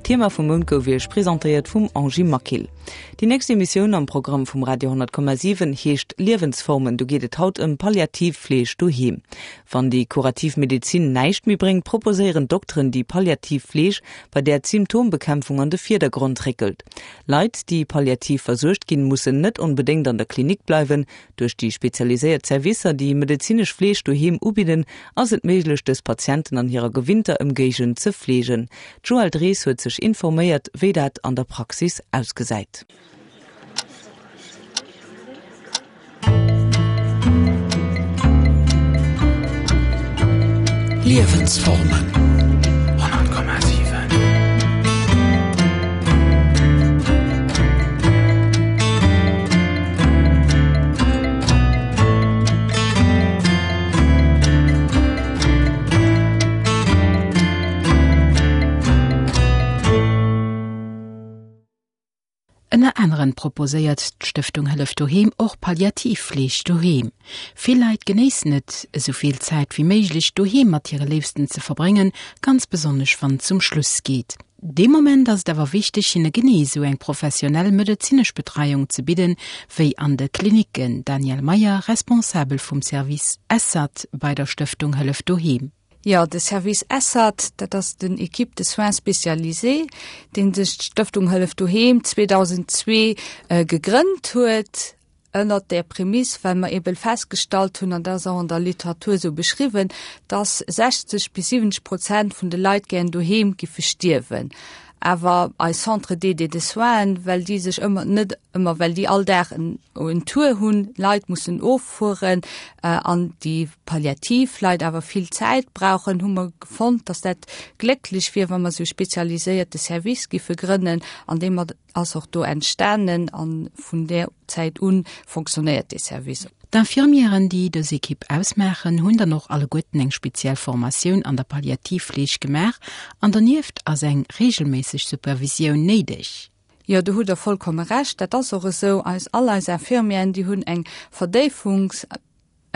D'Thema vum Mount gouf Iech presentéiert vum Angie Maquil. Déi nächst Emissioun am Programm vum Radio 10,7 heescht Liewensformen. Do geet et haut ëm Palliativfleeg doheem. Wann déi kurativ Medezin näischt méi bréngt, proposéieren d'Dokteren déi palliativ Fleeg, bei där d'Symptombekämpfung an de Virdergrond réckelt. Leit, déi palliativ versuergt ginn, mussen net onbedéngt an der Klinik bleiwen. Duerch déi spezialiséiert Servicer, déi medezinesch Fleeg doheem ubidden, ass et méiglech, dës Patienten an hirer gewinnter Ëmgéigend ze fleegen. D'Joëlle Drees huet sech informéiert, wéi dat an der Praxis ausgesäit. Liewensformen 100,7. Ënner aneren proposéiert d'Stëftung Hëllef Doheem och Palliativfleeg doheem. Vill Leit genéissen et, esou vill Zäit wéi méiglech doheem mat hire Léifsten ze verbréngen, ganz besonnesch wann et zum Schluss geet. Dee Moment ass et awer wichteg, hinne genee esou eng professionell medezinesch Betreiung ze bidden, wéi an de Klinicken. Danièle Meyer, Responsabel vum Service ESSAT bei der Stëftung Hëllef Doheem. Jo, de Service ESSAT, dat ass den Équipe de soins spécialisés, dee sech d'Stëftung Hëllef Doheem 2002 gegrënnt huet, ënnert där Prämiss, well mer eeben festgestallt hunn, an dat ass och an der Literatur esou beschriwwen, dass 60 bis 70 Prozent vun de Leit gären doheem giffe stierwen. Awer eis Centres d'aide et de soins, well déi sech ëmmer, net ëmmer, well déi all Dag en en Tour hunn, Leit mussen offueren an déi palliativ Leit awer vill Zäit brauchen, hu mer fonnt, dass dat glécklech wier, wa mer esou e spezialiséierte Service giffe grënnen, an deem mer ass och do entstanen a vun där Zäit u fonctionnéiert dee Service. D'Infirmièren, déi dës Ekipp ausmaachen, hunn dann och alleguerten eng speziell Formatioun an der Palliativfleeg gemaach an donieft ass eng reegelméisseg Supervisioun néideg. Jo, do hutt Der vollkomme Recht. Dat ass och esou. Eis, all eis Infirmièren, déi hunn eng Verdéifungs.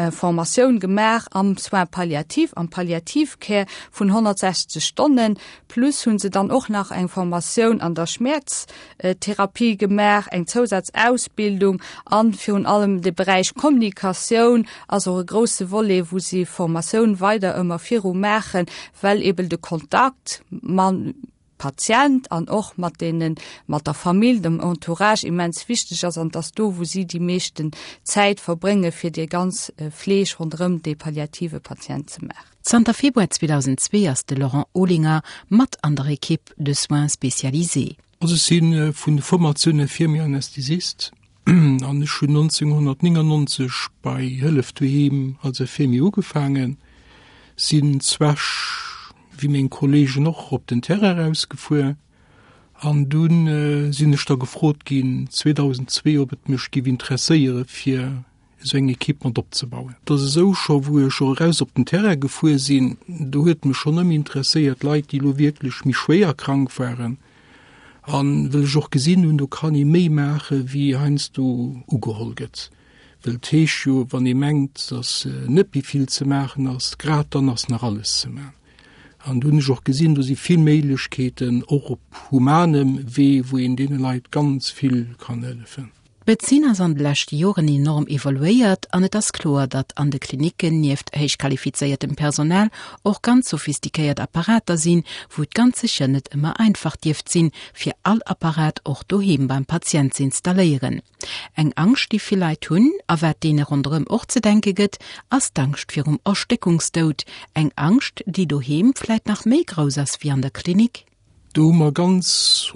Formatioun gemaach am Soins palliatifs, am Palliative Care vun 160 Stonnen, plus hu se dann och nach eng Formatioun an der Schmäerztherapie gemaach, eng Zousazausbildung an virun allem de Beräich Kommunikatioun ass och e grousse Volet, wou si Formatioun weider ëmmer viru maachen, well eben de Kontakt mam Patient an och mat deenen, mat der Famill, dem Entourage immens wichteg ass an dass do wou si déi meeschten Zäit verbrénge fir déi ganz Fleeg ronderëm dee palliative Patient ze maachen. Zanter Februar 2002 ass de Laurent Olinger mat an der Equipe de soins spécialisés. Also ech si vun Formatioun Infirmier Anästhesist an ech hunn 1999 bei Hëllef Doheem als Infirmier ugefaangen, sinn zwech wéi meng Kollegen och op den Terrain erausgefuer an dunn sinn ech da gefrot ginn 2002 ob et mech giff interesséiere fir esou eng Equipe mat opzebauen. Et ass esou, scho wou ech och eraus op den Terrain gefuer sinn, do huet mech schonn ëmmer interesséiert Leit déi elo wierklech méi schwéier krank waren an well ech och gesinn hunn, do kann ee méi maache wéi heiansdo ugeholl gëtt. Well et heescht jo, wann ee mengt, datt net méi vill ze maachen ass, grad dann ass nach alles ze maachen. An do hunn ech och gesinn, do si vill Méiglechkeeten, och op humanem Wee, wou een deene Leit ganz vill kann hëllefen. D'Medezin ass an de leschte Joren enorm evoluéiert an et ass kloer, datt an de Klinicken nieft héichqualifizéiertem Personal och ganz sophistiquéiert Apparater sinn, wou et ganz sécher net ëmmer einfach dierft sinn, fir all Apparat och doheem beim Patient ze installéieren. Eng Angscht, déi vill Leit hunn, a wat deene ronderëm och ze denke gëtt, ass d'Angscht virum Erstéckungsdoud. Eng Angscht, déi doheem vläit nach méi grouss ass wéi an der Klinik. Do hu mer ganz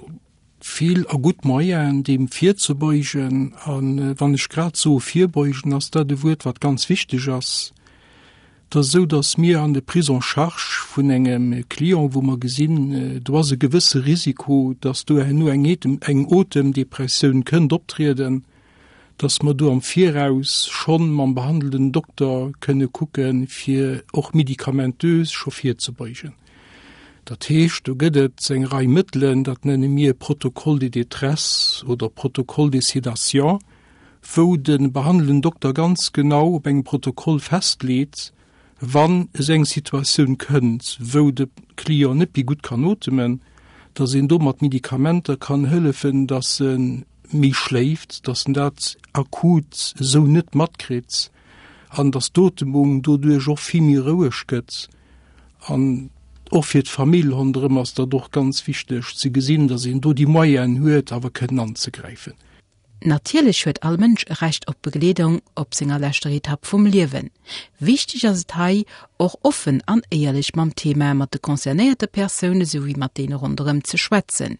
vill a gutt Moyenen, deem virzebeugen. A wann ech grad soe virbeugen, ass dat e Wuert, wat ganz wichteg ass. Et ass esou, datt mir an de Prise en charge vun engem Client, wou mer gesinn, do ass e gewësse Risiko, datt do herno eng eng Otemdepressioun kënnt optrieden, datt mer do am Viraus schonn mam behandelnden Dokter kënne kucken, fir och medikamentös scho virzebeugen. Dat heescht, do gëtt et eng Rei Mëttelen, dat nenne mir Protocole de détresse oder Protocole de sédation, wou de behandelnden Dokter ganz genau op engem Protokoll festleet, wann esou eng Situatioun kënnt, wou de Client net méi gutt kann otemen, Dass een do mat Medikamenter kann hëllefen, dass e méi schléift, dass en dat akut esou net matkritt an dass d'Otemung doduerch och vill méi roueg gëtt. An och fir d'Famill ronderëm ass dat och ganz wichteg ze gesinn, dass een do déi Moyenen huet, awer kënnen anzegräifen. Natierlech huet all Mënsch e Recht op Begleedung op senger leschter Etapp vum Liewen. Wichteg ass et hei, och offen an éierlech mam Thema mat de concernéierte Persoune souwéi mat deene ronderëm ze schwätzen.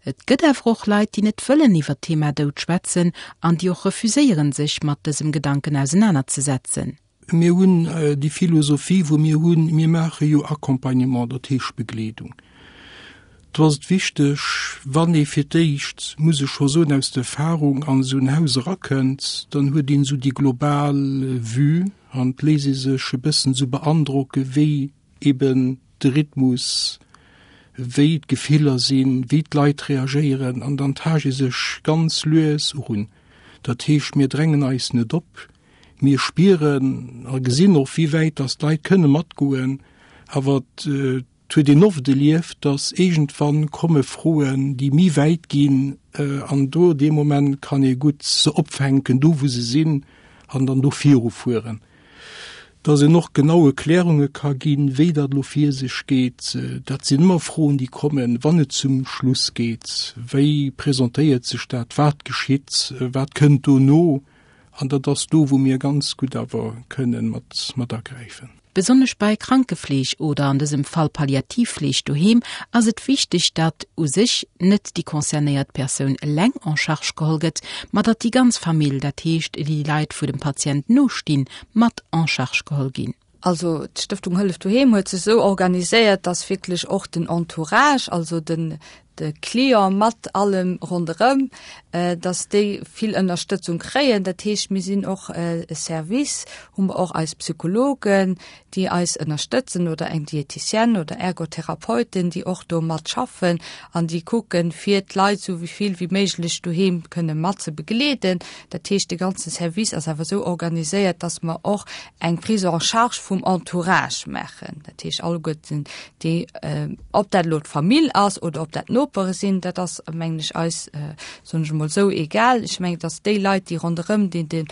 Et gëtt awer och Leit, déi net wëllen iwwer d'Thema Doud schwätzen an déi och refuséieren, sech mat dësem Gedanken ausenanerzesetzen. Mir hunn déi Philosophie, wou mir hunn, mir maache jo Accompagnement, dat heescht Begleedung. Do ass et wichteg, wann ee fir d'éischt, muss ech scho soen, aus der Erfahrung an esou en Haus erakënnt, dann huet een esou déi global Vue an et léisst ee sech e bëssen esou beandrocke wéi eben de Rhythmus, wéi d'Gefiller sinn, wéi d'Leit reagéieren an dann taascht ee sech ganz lues erun. Dat heescht, mir drängen eis net op, Mir spieren a gesinn och, wéi wäit dass d'Leit kënne matgoen, awer et huet een oft erlieft, dass iergendwann komme Froen, déi méi wäit ginn an do dee Moment kann ee gutt se opfänken, do wou se sinn, an dann do virufueren. Dass een och genau Erklärunge ka ginn, wéi dat elo vir sech geet, dat sinn ëmmer Froen, déi kommen, wann et zum Schluss geet. Wéi presentéiert sech dat? Wat geschitt? Wat kënnt dono? An dat ass do, wou mir ganz gutt awer kënnen mat, mat agräifen. Besonnesch bei Krankefleeg oder an dësem Fall Palliativfleeg doheem ass et wichteg, datt u sech net déi concernéiert Persoun eleng en charge geholl gëtt, ma datt déi ganz Famill, dat heescht déi Leit wou dem Patient nostinn, mat en charge geholl ginn. Also d'Stëftung Hëllef Doheem huet sech esou organiséiert, dass wierklech och den Entourage, also den de Client mat allem ronderëm, dass déi vill Ënnerstëtzung kréien. Dat heescht, mir sinn och e Service, hu mer och eis Psychologen, déi eis ënnerstëtzen oder eng Diéticienne oder Ergotherapeuten, déi och do mat schaffen an déi kucken, fir d'Leit esou vill wéi méiglech doheem kënne mat ze begleeden. Dat heescht, de ganze Service ass awer esou organiséiert, dass mer och eng Prise en charge vum Entourage maachen, dat heescht alleguerten déi, ob dat elo d'Famill ass oder ob dat d'Nopere sinn, dat ass mengen ech eis, soen ech emol esou, egal. Ech mengen, et ass déi Leit, déi ronderëm deen de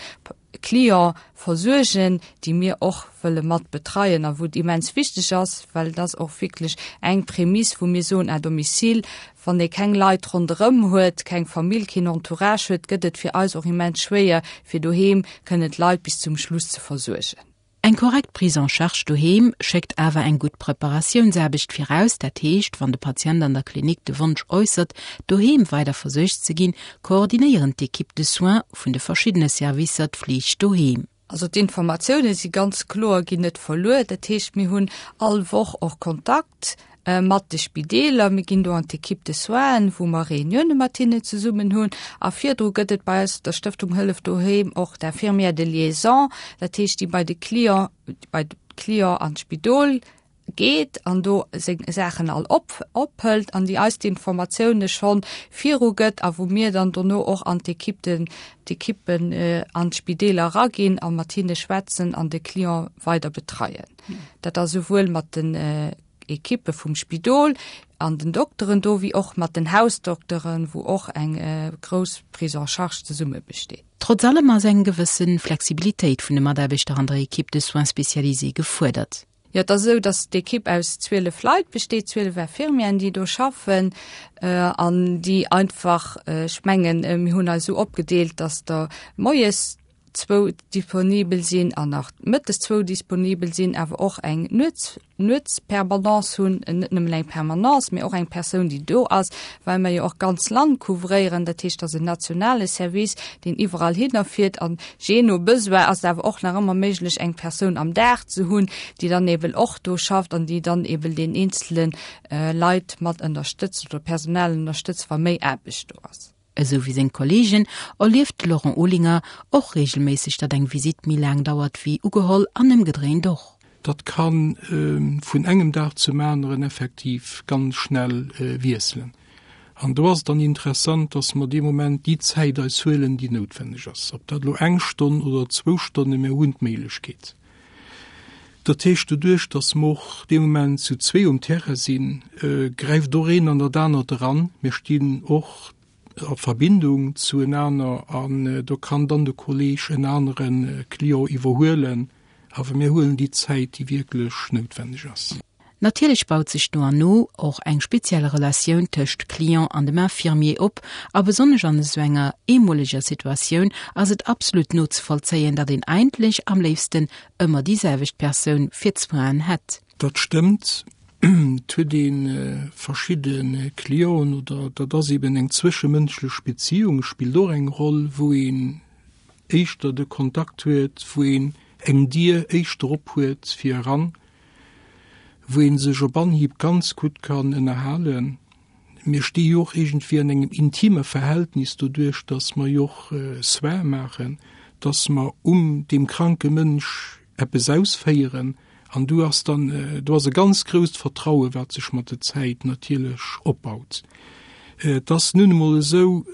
Client versuergen, déi mir och wëlle mat betreien a wou et immens wichteg ass, well et ass och wierklech eng Prämiss, wou mir soen à domicile, Wann ee keng Leit ronderëm huet, keng Famill, keen Entourage huet, gëtt et fir eis och immens schwéier, fir doheem kënnen d'Leit bis zum Schluss ze versuergen. Eng korrekt Prise en charge doheem schéckt awer eng gutt Preparatiounsaarbecht viraus, dat heescht, wann de Patient an der Klinik de Wonsch äussert, doheem weider versuergt ze ginn, koordinéieren d'Equipes de soins vun de verschiddene Servicer d'Fleeg doheem. Also d'Informatioune si ganz kloer, ginn net verluer. Dat heescht, mir hunn all Woch och Kontakt mat de Spideeler. Mir ginn do an d'Équipe de soins, wou mer Reunioune mat hinnen zesummen hunn. A virdru gëtt et bei eis, der Stëftung Hëllef Doheem, och d'Infirmière de liaison, dat heescht, déi bei de Client, bei de Client an d'Spidol geet an do seng Saachen all op ophëlt an déi eis d'Informatioune schonn viru gëtt a wou mir dann dono och an d'Equipe den d'Equippen an d'Spideeler eraginn a mat hinne schwätzen an de Client weider betreien. Dat ass esouwuel mat den Equippe vum Spidol an den Dokteren do wéi och mat den Hausdokteren, wou och eng grouss Prise en charge zesumme besteet. Trotz allem ass eng gewësse Flexibilitéit vun de Mataarbechter an der Equipe de soins spécialisée gefuerdert. Jo, et ass esou, datt d'Ekipp aus 12 Leit besteet, 12 Infirmieren, déi do schaffen an déi einfach, ech mengen, mir hunn eis esou opgedeelt, datt der moies zwou disponibel sinn an nach mëttes zwou disponibel sinn, awer och eng Nuets Nuetspermanence hunn, net nëmmen eng Permanence, mee och eng Persoun, déi do ass, well mer jo och d'ganz Land couvréieren. Dat heescht, et ass en nationale Service, deen iwwerall hinner fiert an jee no Besoin ass et awer och nach ëmmer méiglech, eng Persoun am Dag ze hunn, déi dann eben och do schafft an déi dann eben den eenzele Leit mat ënnerstëtzt oder Personal ënnerstëtzt, wa méi Aarbecht do ass. Esou wéi seng Kolleegen erlieft de Laurent Olinger och reegelméisseg, datt eng Visitt méi laang dauert wéi ugeholl an ëmgedréint och. Dat ka vun engem Dag zum aneren effektiv ganz schnell wiesselen. An do ass et dann interessant, dass mer dee Moment déi Zäit eis huelen, déi noutwenneg ass. Ob dat elo eng Stonn oder zwou Stonnen, mir hunn d'Méiglechkeet. Dat heescht, doduerch, datt mer och dee Moment zu zwee um Terrain sinn, gräift och een an dat anert eran. Mir stinn och a Verbindung zuenaner an do kann dann de Kolleeg en anere Client iwwerhuelen. Awer mir huelen déi Zäit, déi wierklech noutwenneg ass. Natierlech baut sech no an no och eng speziell Relatioun tëscht Client an dem Infirmier op, a besonnesch an esou enger eemoleger Situatioun ass et absolut nozevollzéien, datt een eigentlech am léifsten ëmmer déi selwecht Persoun fir d'Soinen hätt. Dat stëmmt. Et huet ee verschidde Clienten oder dat ass eben eng zwëschemënschlech Beziung spillt och eng Roll, wou een éischter de Kontakt huet, wou een eng Dier éischter op huet fir eran, wou ee sech op Anhieb ganz gutt kann ënnerhalen. Mir sti jo och iergendwéi an engem intime Verhältnis doduerch, datt mer jo och Soins maachen, datt mer um deem kranke Mënsch eppes ausféieren an do ass dann, do ass e ganz grousst Vertraue wat sech mat der Zäit natierlech opbaut. Et ass nun emol esou,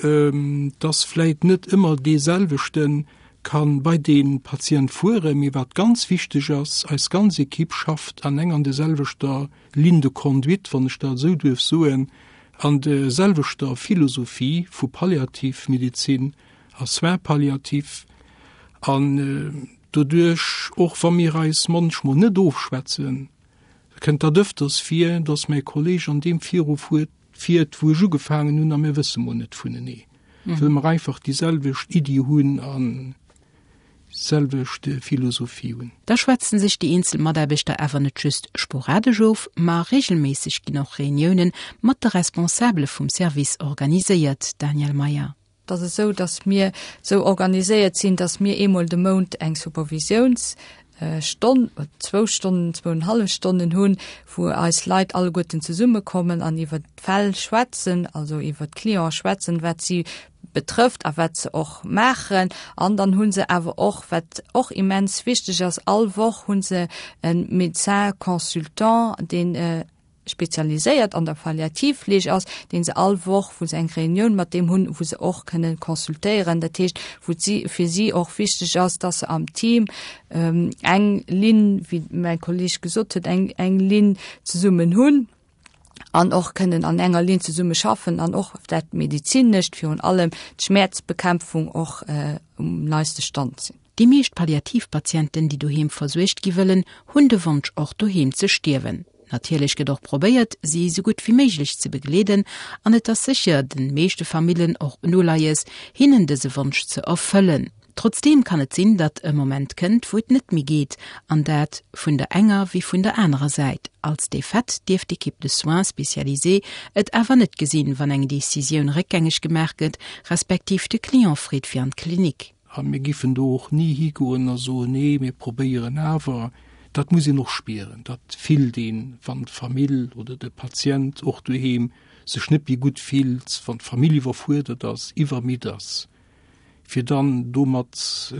datt vläit net ëmmer deeselwechte ka bei dee Patient fueren, mee wat ganz wichteg ass, eis ganz Equipe schafft an eng an der selwechter Ligne de conduite, wann ech dat esou duerf soen, an der selwechter Philosophie vu Palliativmedezin a Soins palliatifs an doduerch, och wa mir eis munchmol net ofschwätzen, kënnt dat ëfters vir, dass mäi Kolleg an deem virufuert, fiert, wou ech ugefaangen hunn a mir wësse mol net vunenee, well mer einfach déi selwecht Iddi hunn an selwecht Philosophie hunn. Da schwätzen sech déi eenzel Mataarbechter awer net just sporadesch of, ma reegelméisseg ginn och Reuniounen mat de Responsabele vum Service organiséiert. Daniel Meyer. Et ass esou, datt mir esou organiséiert sinn, datt mir eemol de Mount eng Supervisiounsstonn, zwou Stonnen, zwouenhallef Stonnen hunn, wou eis Leit alleguerten zesummekommen an iwwert d'Fäll schwätzen, also iwwert d'Cliente schwätzen, wat si betrëfft a wat se och maachen. An dann hu se awer och, wat och immens wichteg ass, all Woch hu se e Médecin consultant, deen spezialiséiert an der Palliativfleeg ass, dee se all Woch, wou se eng Reunioun mat deem hunn, wou se och kënnen consultéieren. Dat heescht, wou et si, fir si och wichteg ass, dass se am Team eng Linn, wéi mäi Kolleg gesot huet, eng, eng Linn zesummen hunn an och kënnen an enger Linn zesumme schaffen an och dat Medezinescht, virun allem d'Schmäerzbekämpfung och um neiste Stand sinn. Déi meescht Palliativpatienten, déi doheem versuergt gi wëllen, hunn de Wonsch och doheem ze stierwen. Natierlech gëtt och probéiert, si esou gutt wéi méiglech ze begleeden an et ass sécher den meeschte Famillen och en Uleies, hinnen dëse Wonsch ze erfëllen. Trotzdeem kann et sinn, datt e Moment kënnt, wou et net méi geet, an dat vun der enger wéi vun der anerer Säit. Als Defaite dierf d'Equipe de soins spécialisée et awer net gesinn, wann eng Decisioun réckgängeg gemaach gëtt, respektiv de Client freet fir an d'Klinik. A mir giffen do och ni higoen a soen, Nee, mir probéieren awer. Dat muss een och spieren, dat fillt een, wann d'Famill oder de Patient och doheem sech net méi gutt fillt, wann d'Famill iwwerfuerdert ass, iwwermidd ass, fir dann domat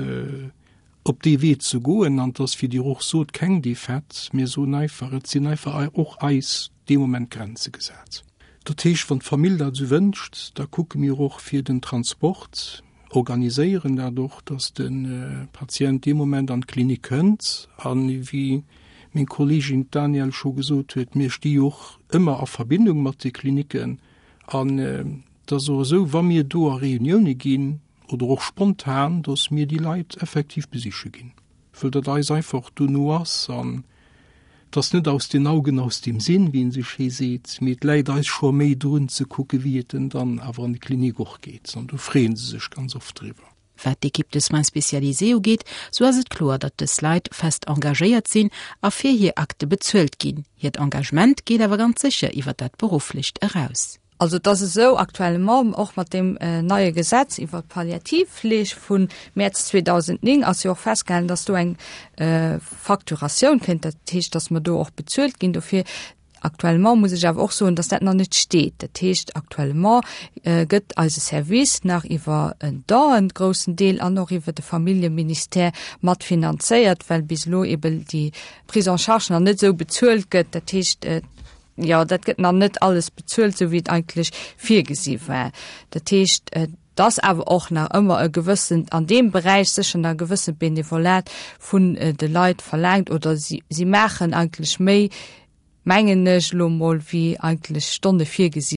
op dee Wee ze goen. An et ass, wéi Dir och sot, keng Defaite. Mir soen einfach, et sinn einfach och eis dee Moment Grenze gesat. Dat heescht, wann d'Famill dat esou wënscht, da kucke mir och fir den Transport, organiséieren dat och, dass de Patient dee Moment an d'Klinik kënnt. A wéi meng Kolleegin d'Danièle scho gesot huet, mir sti jo och ëmmer a Verbindung mat de Klinicken. An et ass och esou, wa mir do a Reunioune ginn oder och spontan, dass mir déi Leit effektiv besiche ginn, wëll dat eis einfach dono ass. An Et ass net aus den Augen, aus dem Sinn, wéi een esou schéi seet, mee et läit eis scho méi drun ze kucke wéi et en dann awer an de Klinik och geet an do freeë se sech ganz oft driwwer. Wat d'Équipe de soins spécialisés ugeet, sou ass et kloer, datt dës Leit fest engagéiert sinn a fir hir Akte bezuelt ginn. Hiert Engagement geet awer ganz sécher iwwer dat Berufflecht eraus. Also et ass esou, actuellement, och mat deem neie Gesetz iwwert d'Palliativfleeg vu Mäerz 2009 ass jo och festgehalen, dass do eng Facturatioun kënnt, dat heescht, dass mer do och bezuelt ginn dofir. Actuellement muss ech awer och soen, dass dat nach net steet. Dat heescht, actuellement gëtt eise Service nach iwwer en Don en groussen Deel an och iwwer de Familljeministère mat finanzéiert, well bis elo eben déi Prise en charge nach net esou bezuelt gëtt. Dat heescht, Jo, dat gëtt nach net alles bezuelt, esou wéi et eigentlech virgesi war. Dat heescht, et Et ass awer och nach ëmmer e gewëssent, an deem Beräich sécher nach e gewëssent Benevolat vun de Leit verlaangt oder si, si maachen eigentlech méi, mengen ech elo mol, wéi eigentlech Stonne virgesi.